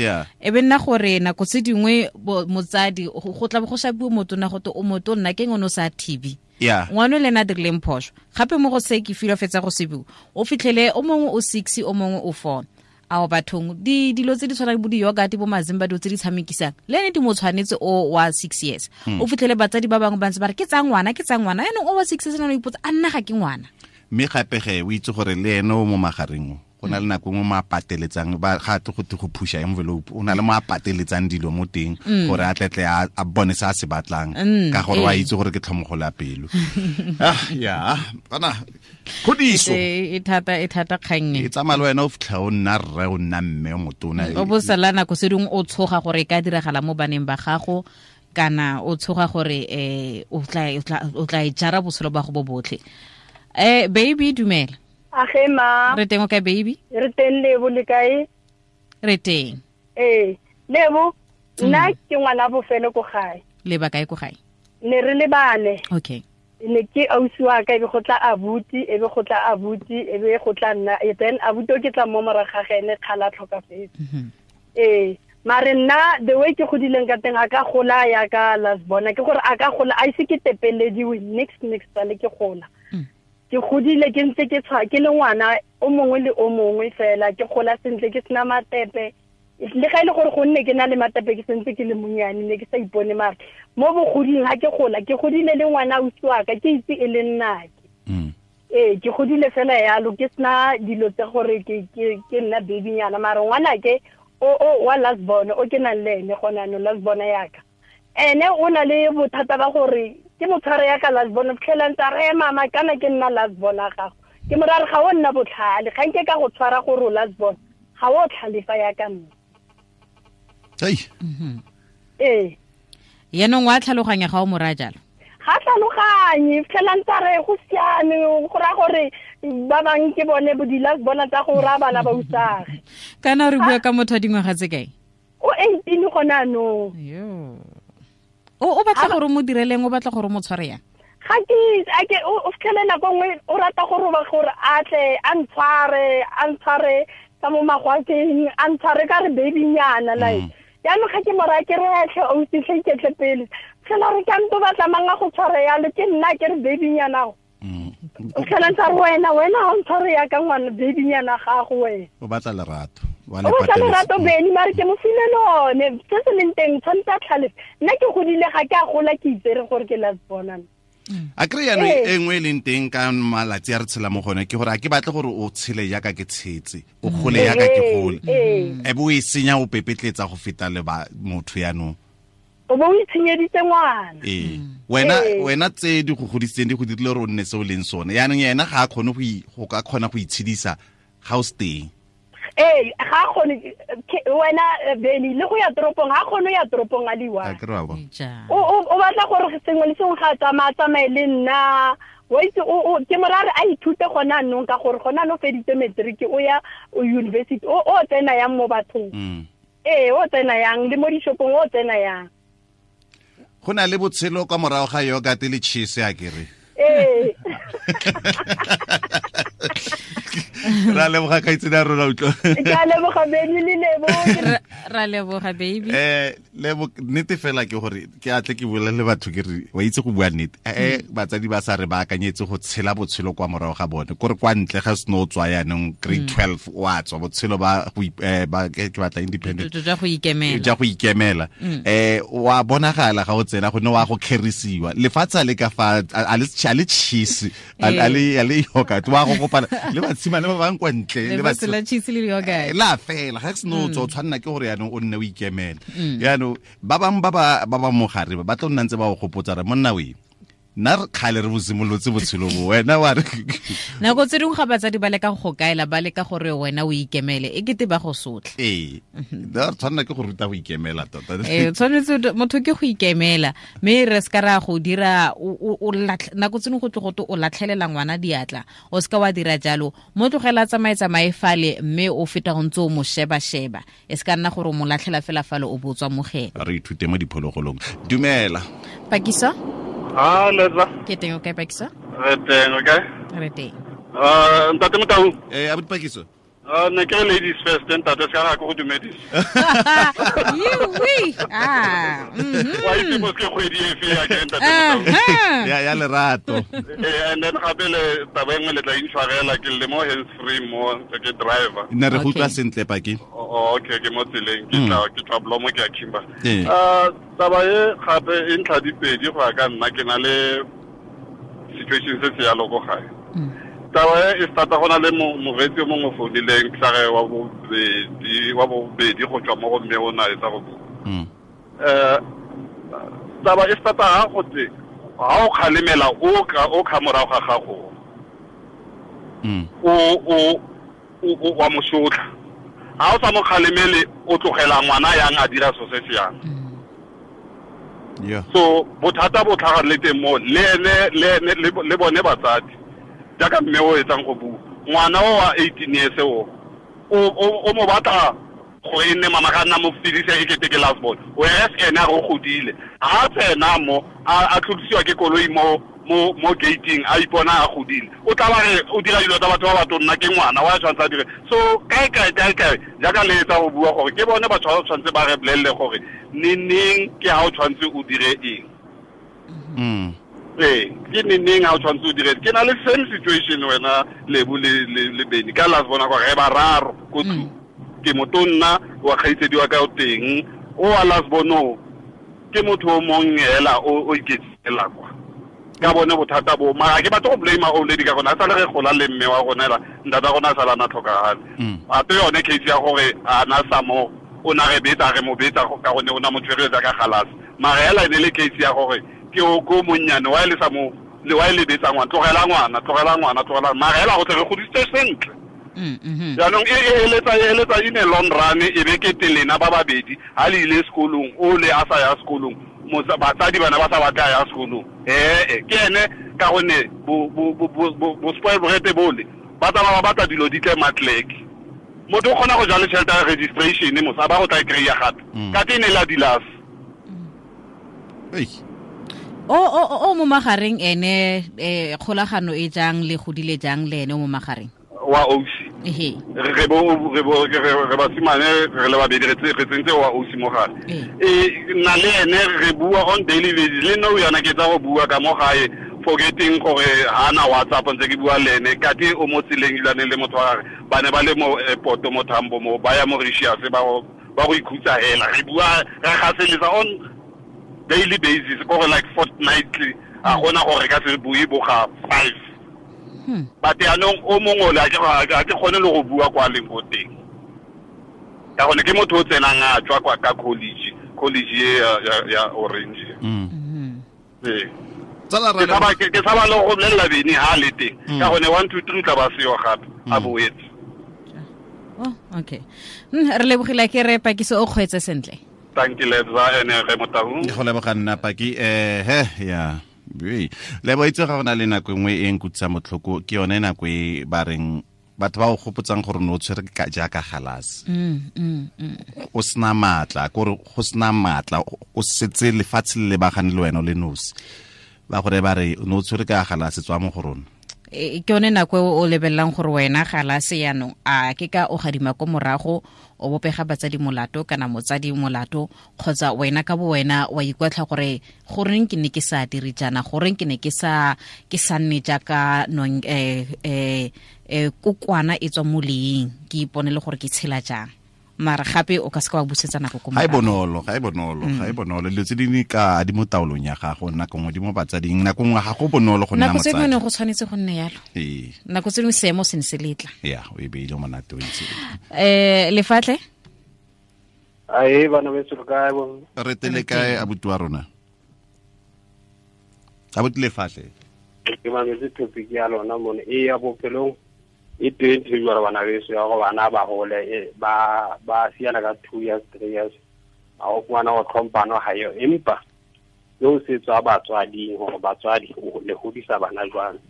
E be nna gore nako tse dingwe motsadi go tla go shapiwa motona go te o motonna ke ngone o sa thibi. Ngwana le ena a dirileng phoso. Gape mo go se ke filo fetsa go se bua. O fitlhele o mongwe o 6 o mongwe o 4. Ao bathong dilo tse di tshwanang bo di-yogurt bo mazimba dilo tse di tshamekisang le ene di mo tshwanetse o wa 6 years. O fitlhele batsadi ba bangwe ba ntse ba re ke tsa ngwana yaanong o wa 6 years o ipotsa a nna ga ke ngwana. Mme gape ge o itse gore le ene o mo magareng o go na le nako nngwe mo a pateletsang ba ga tle go te go phusha envelope, o na le mo a pateletsang dilo mo teng gore a tletle a bone se a se batlang ka gore wa itse gore ke tlhomogolo ya pelo. Ya kana kgodiso e thata kgang e tsamaya le wena o fitlha o nna rre o nna mme o motona o bo sala nako se dingwe o tshoga gore e ka diragala mo baneng ba gago kana o tshoga gore o tla e jara botshelo ba go bo botlhe. Baby dumela. Age ma. Re teng o kae baby? Re teng Lebo le kae? Re teng. Lebo, nna ke ngwana bofelo ko gae. Le ba kae ko gae? Ne re le bane. Okay. Ne ke ausi wa ka e be go tla abuti, e be go tla abuti, e be go tla nna, then abuti o ke tla mo morago ga ene kgala tlhokafetse. Mare nna the way ke godileng ka teng a ka gola ya ka last bona ke gore a ka gola a ise ke tepelediwe next le ke gola. Ke godile ke ntse ke tshwa ke le ngwana o mongwe le o mongwe fela ke gola sentle ke sena matepe le ga ile gore go nne ke na le matepe ke sentse ke le monyane ne ke sa ipone mare mo bogoding ha ke gola ke godile le ngwana ausi wa ka ke itse e le nnake. Ke godile fela yalo ke sena dilo tse gore ke nna babynyana mare ngwana ke o wa last born o ke nang le ene gona no last born yaka ene o na le bothata ba gore ke motshware ya ka last born fitlhela ntse re mama kana ke nna last born a gago ke morare ga o nna botlhale ga nke ka go tshwara gore o last born ga o tlhalefa ya ka nna. Yaanong wa tlhaloganya ga o mo raya jalo? Ga tlhaloganye fitlhela ntse re go siame go raya gore ba bangwe ke bone bo di-last born tsa go raya bana ba usage. Kana re bua ka motho wa dingwaga tse kae? O 18 gona anong. O batla gore o mo direleng, o batla gore o mo tshware yang? Ga ke o fitlhele nako nngwe o rata gore a tle a ntshware ka mo magwakeng a ntshware ka re babynyana like jaanong ga ke mo raya ke re tlhe ausi tlhe iketle pele fitlhela re ka nto batla mang a go tshware yalo ke nna ke re babynyana go o fitlhela ntse re wena ga o ntshware yaka ngwana babynyana gago wena o batla lerato. O batla lerato Beny mare ke mo file lone se se leng teng tshwanetse a tlhalefe nna ke godile ga ke a gola ke itsere gore ke last born. A kry yaanong e nngwe e leng teng ka malatsi a re tshela mo gone ke gore a ke batle gore o tshele jaaka ke tshetse, o gole jaaka ke gole, e bo o e senya o pepetletsa go feta le motho yaanong. O bo o itshenyeditse ngwana. Wena tse di go godisitseng di go dirile gore o nne se o leng sone yaanong ena ga a kgone go ka kgona go itshedisa ga o se teng. Ga kgone wena Beny le go ya toropong ga kgone ya toropong a le one. O batla gore sengwe le sengwe ga a tsamaye le nna wa itse ke morare a ithute gona anong ka gore gona anong feditse matric o ya university o tsena yang mo bathong. O tsena yang le mo dishopong o tsena yang. Go na le botshelo kwa morago ga yogurt le cheese a kere. Ra leboga kgaitsedi ya rona utlwa. Ke a leboga Benny le Lebo. Ra leboga baby. Lebo nnete fela ke gore ke atle ke bolele batho ke re wa itse go bua nnete. Batsadi ba sa re baakanyetse go tshela botshelo kwa morago ga bone. Kore kwa ntle ga seno o tswa yaanong grade 12 wa tswa botshelo ba go ba ke batla independent. Jwa go ikemela. Jwa go ikemela. Wa bonagala ga o tsena go ne wa go kgerisiwa. Lefatshe le ka fa a le cheese a le yogurt wa go kopana le batshimane ba bang kwa ntle le ba cheese le yogurt la fela ga se no tswa tshwanna ke gore yaanong o nne o ikemela yaanong ba bang ba ba mogare ba tlo nna ntse ba go gopotsa re monna we nna re kgale re bosimolotse botshelo bo wena wa re nako tse dingwe ga batsadi ba leka go kaela ba leka gore wena o ikemele e kete ba go sotla ee re tshwanela ke go ruta go ikemela tota tshwanetse motho ke go ikemela mme re se ka ra go dira nako tse dingwe go tle go o latlhelela ngwana diatla o se ka wa dira jalo mo tlogela tsamaye fale mme o feta go ntse o mo sheba-sheba e se ka nna gore o mo latlhela fela fale o botswa mogela re ithute mo diphologolong dumela Pakiso. Ah, Letla. Ke teng o kae Pakiso? Re teng, o kae? Re teng. Ntate Motau. Abuti Pakiso. Ne ke ladies first, ntate se ka go dumedisa. Yiwi. Ah. Wa itse mo ke kgwedi efe ya ke ntate Motau. Ya lerato. And then gape le taba engwe le tla intshwarela ke le mo hands free mo ke driver. Ne re go utlwa sentle Paki. Okay, ke mo tseleng ke tla blomo ke a Kimba. Taba e gape e ntlha dipedi go ya ka nna ke na le situation se se yalo ko gae. Taba e starta go na le moreetsi o mongwe founileng ke sa re wa bobedi go tswa mo go mme o na etsa go bua. Taba e starta ga go tse ga o kgalemela o kha morago ga gago. O wa mo sotla. Ga o sa mo kgalemele o tlogela ngwana yang a dira so se se yang. Yeah. So bothata bo tlhaga le teng mo le ene le bone batsadi jaaka mme o etsang go bua ngwana o wa 18 years o mo batla go e nne mama ga nna mo fedisa e kete ke last born whereas ene a go godile ha tsena mo a tlodisiwa ke koloi mo gating a ipona a godile o tla ba re o dira dilo tsa batho ba batho nna ke ngwana wa tshwanetse a dire so kae jaaka le etsa go bua gore ke bone batho ba tshwanetse ba re bolelele gore neneng ke ha o tshwanetse o dire eng ke neneng ha o tshwanetse o dire ke na le same situation wena Lebo le Benny ka last bona gore re bararo ko tlung ke motonna wa kgaitsedi wa ka o teng o wa last bono ke motho o mong hela o iketsela kwa ka bone bothata bo mara ke batla go blame old lady ka gona a sale re gola le mme wa rona ela ntata rona a sala na tlhokagale ape yone case ya gore a na sa mo o na re betsa re mo betsa ka gone o na mo tshweretsa ka galase mara hela e ne le case ya gore ke o ko monnyane wa le sa mo le wa le betsa ngwana tlogela ngwana mara hela go tle re godisitse sentle jaanong e eletsa in a long run e be ke telena ba babedi ha le ile sekolong o le a sa ya sekolong batsadi bana ba sa batla ya sekolong ke ene ka gonne bo spoil borete bole ba tsamaya ba batla dilo di tle matleke motho o kgona go jala tšhelete ya registration mosa ba go tla e kry-a gape ka te ne la dilas o mo magareng ene kgolagano e jang le godile jang le ene o mo magareng wa ausi re basimane re le babedi re tsentse wa ausi mo gare nna le ene re bua on daily basis le nna o yana ke tsa go bua ka mo gae forgetting gore ha na WhatsApp ntse ke bua le ene kate o mo tseleng ilane le motho wa gagwe ba ne ba le mo airport mo Thambo mo ba ya Mauritius ba go ikhutsa hela re bua re gaseletsa on daily basis gore like fortnightly a gona gore ka se bue boga 5 but yaanong o mongwe ole a ke kgone le go bua kwa leng ko teng ka gone ke motho o tsenang a tswa kwa ka college e ya Orange ke tshaba le go bolelela Bene ha le teng ka gone 1 2 3 tla ba seo gape a boetse. Oh, okay. Re lebogile ke re Pakiso o kgweetse sentle. Thank you Lebza ene re Motau. Go leboga nna Paki ya le bo itse ga gona le nako engwe e nkutsang motlhoko ke yone nako e ba reng batho ba o gopotsang gore no tshwere ka jaaka galase o sena matla gore go sena matla o setse lefatshe le lebagane le wena le nosi ba gore ba re no tshwere ka galase tswa mo go rona. Ke yone nako e o lebelelang gore wena ga la se yanong a ke ka o gadima ko morago o bopega batsadi molato kana motsadi molato kgotsa wena ka bo wena wa ikwatlha gore goreng ke ne ke sa dire jaana, goreng ke ne ke sa nne jaaka nong kokwana e tswa mo leeng, ke ipone le gore ke tshela jang. Mara gape o ka se ka wa busetsa nako ko morago. Ga e bonolo. Dilo tse dingwe ka di mo taolong ya gago, nako nngwe di mo batsading, nako nngwe ga go bonolo go nna motsadi. Nako tse dingwe go tshwanetse go nne yalo. Nako tse dingwe seemo se ne se letla. Ya, o e beile monate o itse. Lefatle? Ae, bana beso le kae bo? Re tele kae abuti wa rona? Abuti Lefatle. Ke mametse topic ya lona mone e ya bophelong. E teng ntho e jwalo bana beso ya gore bana ba hole ba siana ka 2 years 3 years a o ngwana o tlhompano ha yo, empa yo se tswa batswading gore batswadi le hodisa bana jwang.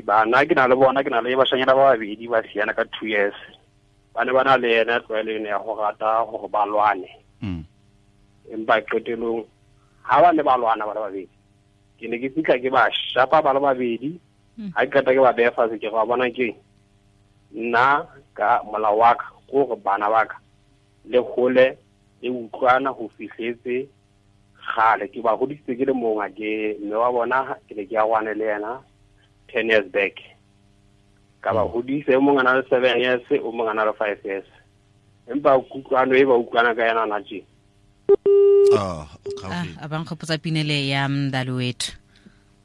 Bana ke na le bona, ke na le bashanyana ba babedi ba siana ka 2 years, ba ne ba na le ena tlwaelo ena ya go rata gore ba lwane. Empa qetelong ha ba ne ba lwana ba le babedi, ke ne ke fitlha ke ba shapa ba le babedi. Ha ke qeta ke ba beha fatshe, ke go bona ke nna ka molao wa ka gore bana ba ka le hole le utlwana ho fihletse kgale. Ke ba hodisitse ke le mong, ke mme wa bona ke ne ke ya kwane le yena 10 years back. Ka ba hodisa, e mong a na le 7 years, o mong a na le 5 years. Empa kutlwano e ba utlwana ka yena na tje. A ba nkgopotsa pinele ya mdalo wethu.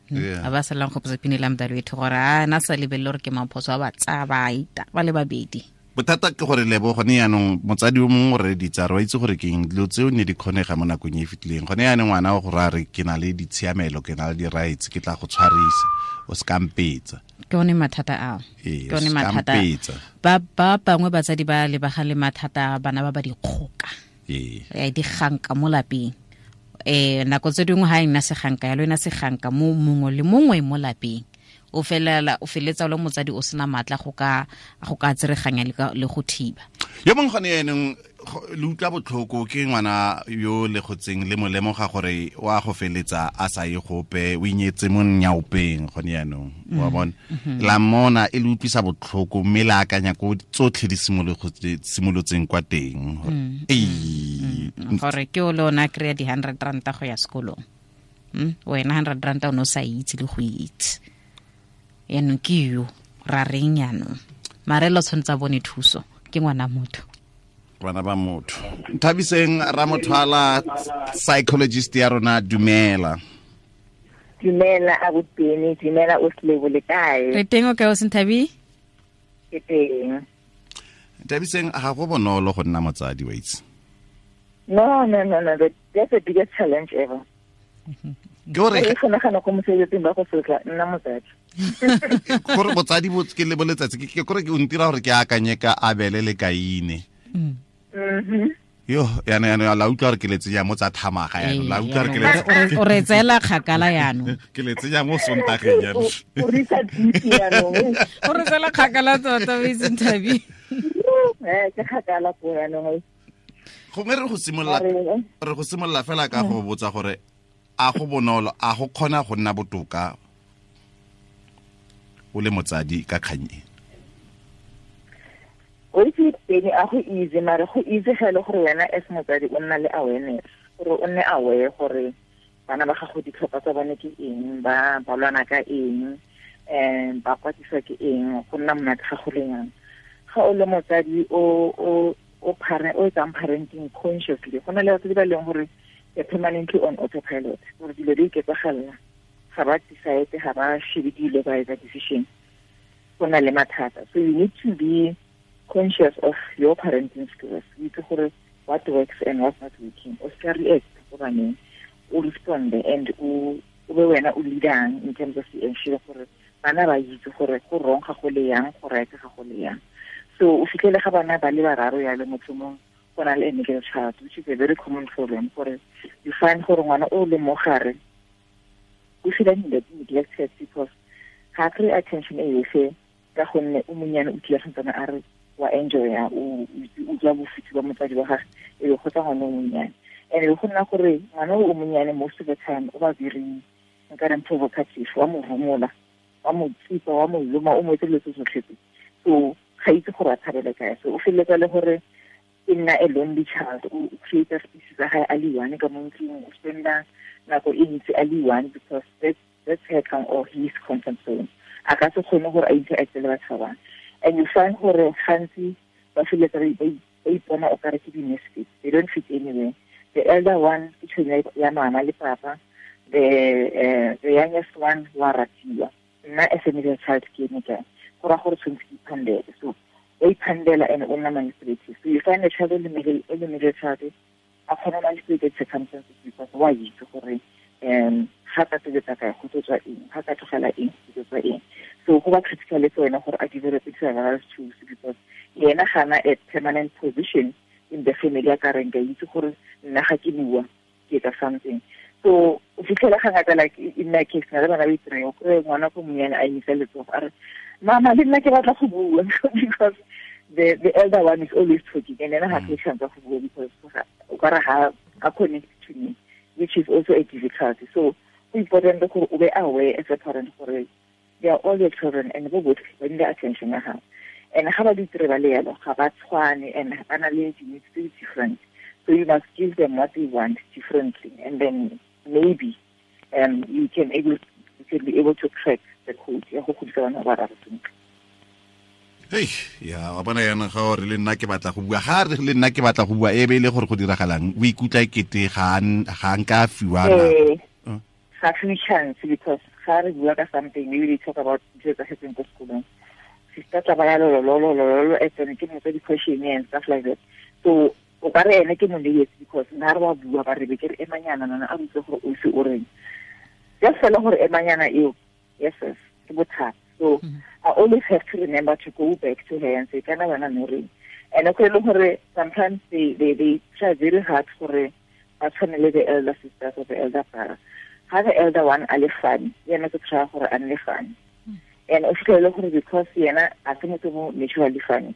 A ba salang gopotsa pinele ya mdalo wethu gore a na sa lebelele gore ke maphoso a ba tsaya ba ita ba le babedi. Bothata ke gore lebo gone yaanong motsadi o mongwe o reditsa re wa itse gore ke eng dilo tseo ne di kgonega mo nakong e e fetileng. Gone yaanong ngwana o gore a re ke na le ditshiamelo, ke na le di-rights, ke tla go tshwarisa, o se kampetsa. Ke one mathata ao. Ke one mathata. Ba bangwe batsadi ba lebagane le mathata bana ba ba dikgoka. Diganka mo lapeng. Nako tse dingwe ha e nna seganka yalo, e nna seganka mo mongwe le mongwe mo lapeng. O feletsa o le motsadi o sena matla go ka tsereganya le go thiba. Yo mongwe gone yanong le utlwa botlhoko ke ngwana yo le gotseng le mo lemoga gore wa go feletsa a sa ye gope, o inyetse mo nyaopeng gone yanong, wa bona. La mmona e le utlwisa botlhoko mme le akanya ko tsotlhe di simolotseng kwa teng. Gore ke o le ona kry-a di-100 ranta go ya sekolong. Wena 100 ranta o ne o sa itse le go itse. Yaanong ke yo ra reng yaanong, mare lo tshwanetse a bone thuso, ke ngwana motho. Bana ba motho. Nthabiseng Ramothwala, psychologist ya rona, dumela. Dumela abuteni, dumela o Slebo, le kae? Re teng, o kae o Senthabi? Ke teng. Nthabiseng, ga go bonolo go nna motsadi wa itse. No, that's the biggest challenge ever. Ke gore ke nagana go mosebetsing ba go sotla nna motsadi. Gore botsadi bo ke le boletsatsi ke gore ke o ntira gore ke akanye ka Abele le Kaine. Yo yana la utlwa gore ke le tsenya mo tsa thamaga yana, la utlwa gore ke le o re tseela kgakala yanong. Ke le tsenya mo Sontageng yanong. O re sa ditse yanong. O re tseela kgakala tota o itse Nthabi. Ke kgakala ko yanong. Gongwe re go simolola fela ka go botsa gore a go bonolo, a go kgona go nna botoka o le motsadi ka kgang e? O itse teng a go easy, mare go easy ga le gore wena as motsadi o nna le awareness, gore o nne aware gore bana ba gago ditlhokwa tsa bone ke eng, ba lwana ka eng, ba kwatiswa ke eng, go nna monate ga go le yang. Ga o le motsadi o etsang parenting consciously, go na le batsadi ba e leng gore they're permanently on autopilot, gore dilo di iketsagalela, ga ba decide, ga ba shebe dilo ba etsa decision, go na le mathata. So you need to be conscious of your parenting skills. O itse gore what works and what's not working. O ska react ko baneng, o responde and o be wena o leadang in terms of the ensure gore bana ba itse gore go wrong ga go le yang, go right ga go le yang. So o fitlhele ga bana ba le bararo ya le motho mongwe go na le a middle child, which is a very common problem. Gore you find gore ngwana o le mo gare o feel neglected because ga kry attention e yotlhe ka gonne o monnyane o tlile santsane a re wa enjoya, o utlwa bofuthu ba motsadi wa gagwe, e be go tsa ngwana o monnyane. And e go nna gore ngwana o monnyane most of the time o ba very nka reng provocative, wa mo rumola, wa mo tsipa, wa mo loma, o mo etse dilo tse tsotlhe tse. So ga itse gore a tshabele kae. So o feleletsa le gore e nna a lonely child, o create space tsa gae a le one ka mo ntlong, o spenda nako e ntsi a le one because that's her or his comfort zone. A ka se kgone gore a interact le batho ba bangwe. And you find gore gantsi ba feleletsa ba ipona o kare ke di-misfits. They don't fit anywhere. The elder one ke tšhomi ya mama le papa, the youngest one wa ratiwa. Nna as a middle child ke eme kae? Go raya gore tshwanetse ke iphandele. So o iphandela and o nna manipulative. So you find a child in the middle child a kgona manipulate circumstances because wa itse gore ga ka tobetsa kae go tlo tswa eng, ga ka tlogela eng go tlo tswa eng. So go ba critical le wena gore a develop survival tools because yena ga na a permanent position in the family ya ka reng ka itse gore nna ga ke bua ke etsa something. So o fitlhela ga ngata like in my case na le bana ba itireng, o kry ngwana ko monyane a emisa letsogo a re mama le nna ke batla go bua because the elder one is always talking and then ga ke chance go bua because o ka re ga connect to me, which is also a difficulty. So important gore o be aware as a parent gore they are all your children and bo botlhe ba need attention ya gago. And ga ba di dire ba le yalo, ga ba tshwane and ba na le di-needs tse different. So you must give them what they want differently, and then maybe you can be able to crack the code ya go godisa bana ba raro sentle. Hey, ya wa bona yana ga re le nna ke batla go bua, ga re le nna ke batla go bua e be ile gore go diragalang, o ikutlwa ekete ga nka fiwa na ga fiwe chance because ga re bua ka something, maybe they talk about dilo tsa setseng ko sekolong, sister tla ba ya lolololololo e tsene ke motsa di-question and stuff like that. So o ka re ene ke mo neetse because nna re wa bua ba re be ke re emanyana nana a botse gore o se o reng, just fela gore emanyana eo, yes yes, ke bothata. So I always have to remember to go back to her and say kana wena no reng. And okay le gore sometimes they try very hard gore ba tshwane le the elder sisters or the elder brother. Ha the elder one a le funny, yena ke try gore a nne funny. And o fitlhele gore because yena a se motho mo naturally funny,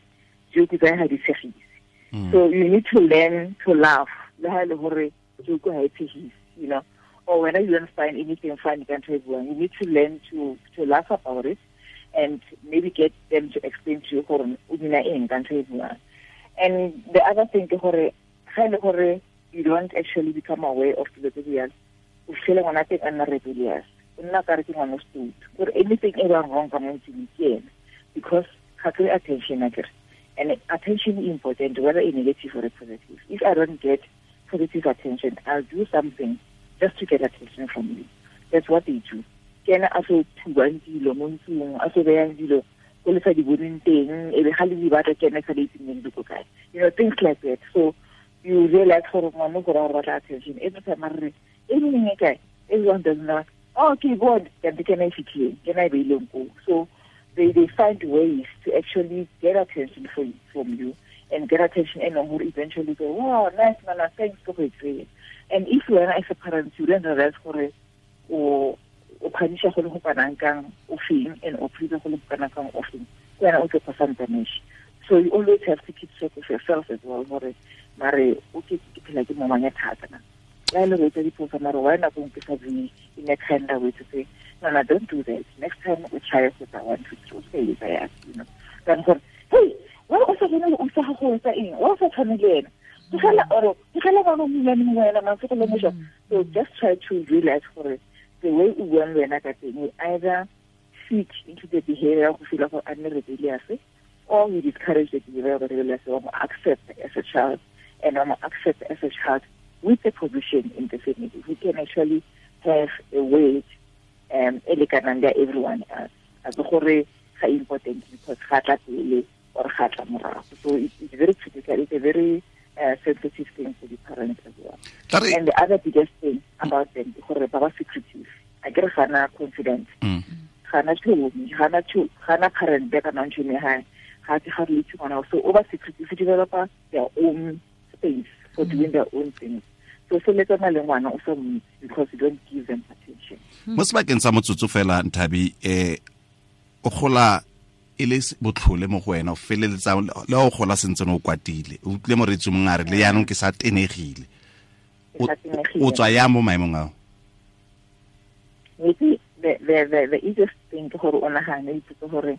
joke tsa ha di tshegise. So you need to learn to laugh. Le ha le hore joke ha e tshegise, you know. Or whether you don't find anything funny, you need to learn to laugh about it and maybe get them to explain to you gore o dina eng ka ntho e buang. And the other thing ke gore ga ile gore you don't actually become aware of dilo tse di yalo, o fitlhele ngwana teng a nna rebellious, o nna ka re ke ngwana o stupid, gore anything e bang wrong ka mo ntlong ke ena because ga kry attention akere. And attention is important, whether it's negative or positive. If I don't get positive attention, I'll do something just to get attention from you. That's what they do. Ke ena a so thubang dilo mo ntlong, a so beyang dilo ko le sa di boneng teng, e be ga le di batla ke ena sa di itseng di ko kae. You know, things like that. So you realize gore ngwana gore o batla attention. Every time a re, e nngwe e kae? Everyone doesn't know. Oh, okay, good. Ke ena e fitlhileng, ke ena e beileng koo. So they find ways to actually get attention from you and get attention and who eventually go, wow, nice, mama, thanks for it. And if you are as a parent, you don't realize gore o phanisha go le go kanang kang o feng and o phisa go le go kanang kang o feng, wena o tlo phasang damage. So you always have to keep track of yourself as well, gore mare o ke phela ke momanya thata na. La le re tsa diphoso mare why nako ke sa bue in a kind of way to say, no, don't do that. Next time we try with that 1, 2, 3, say it, you know. Then go, hey, why o sa bone o sa go etsa eng? Wa sa tshwane le ena. So just try to realize gore the way o buang le wena ka teng, we either fit into the behavior go feel gore a nne rebellious, or we discourage the behavior of rebellious, or accept as a child, and accept as a child with a position in the family who can actually have a weight e lekanang le everyone else. A se gore ga important because ga tla pele or ga tla morago. So it's very critical. It's a very sensitive thing for the parents as well. And the other biggest thing about them ke gore ba ba secretive. A ke re ga na confidence. Ga na tšhomi, ga na parent ba kana tšhomi ha ga ke ga re itse ngwana. So over secretive develop their own space for doing their own things. So feletsana le ngwana o sa mo because you don't give them attention. Mo sebakeng sa motsotso fela Nthabi, o gola e le botlhole mo go wena, o feleletsa le o gola sentse o kwatile, o utlwile moreetsi mongwe a re le yaanong ke sa tenegile, o tswa yang mo maemong ao? The easiest thing ke gore o nagane ipotse gore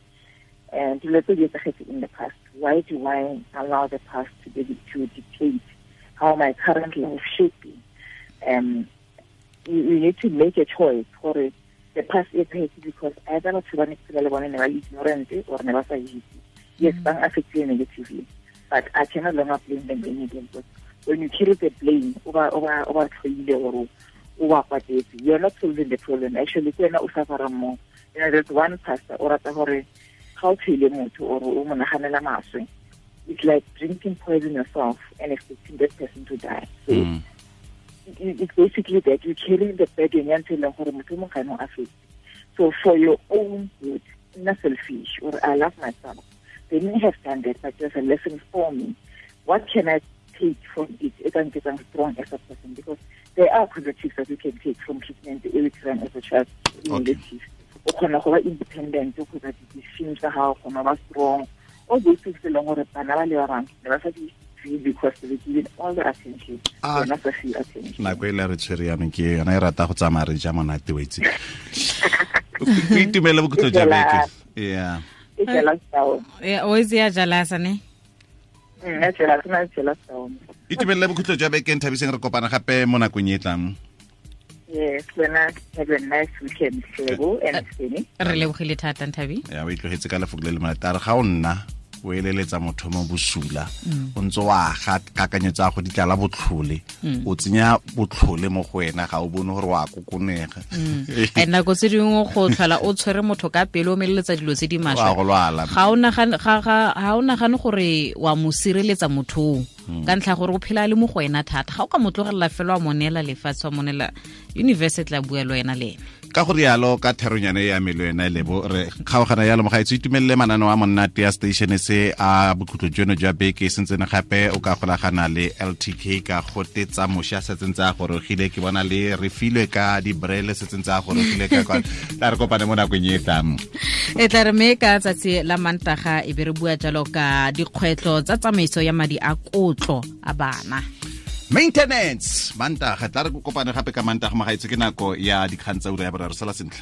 dilo tse di etsagetse in the past, why do I allow the past to dictate how my current life should be? You need to make a choice gore the past e etsagetse because either batho ba ne ke phela le bone ne ba ignorant or ne ba sa itse. Yes, ba affected negatively, but I can no longer blame them anymore. Because when you carry the blame over or you're not solving the problem. Actually, more. You know, there's one pastor or how or it's like drinking poison yourself and expecting that person to die. So it's basically that you're carrying the burden until so for your own good, not selfish, or I love myself. They may have done that, but there's a lesson for me. What can I take from it? I can get strong as a person, because there are positives that you can take from treatment as a child. Okay. Independent, strong. All those things because they given all the attention. Not a few attention. Nako e le re tshwere yanong ke yona e rata go tsamaya re ja monate o itse. O itumele bokhutlo jwa beke. Yeah. E jealous down. Yeah, o itse ya jealous ne? Nna jealous, nna jealous down. Itumelele bokhutlo jwa beke, Nthabiseng, re kopana gape mo nakong e tlang. Yes, wena, have a nice weekend, Lebo and Spenny. Re lebogile thata, Nthabi. Ya, o itlogetse ka lefoko le le monate. A re ga o nna o eleletsa motho mo bosula, o ntse wa ga kakanyo tsa go ditlala botlhole, o tsenya botlhole mo go wena, ga o bone gore wa kokonega. And nako tse dingwe go tlhola o tshwere motho ka pele o meleletsa dilo tse di maswe, ga o nagane gore wa mo sireletsa motho ka ntlha gore o phela le mo go wena thata. Ga o ka mo tlogelela fela wa mo neela lefatshe, wa mo neela universe, tla bua le wena le ene. Ka go rialo ka theronyane ya melo ena Lebo, re kgaogana yalo mogaetso. Itumelele mananeo a monate ya station se a bokhutlo jono jwa beke sentsene gape o ka golagana le LTK ka gote tsa moša setseng tsa gorogile, ke bona le re filwe ka dibrele setseng tsa gorogile ka kwa. Tla re kopane mo nakong e tlang. E tla re me ka tsatsi la Mantaga e be re bua jalo ka dikgwetlho tsa tsamaiso ya madi a kotlo a bana. Maintenance Mantaga, tla re kopane gape ka Mantaga mogaetso, ke nako ya dikgang tsa ura ya boraro. Sala sentle.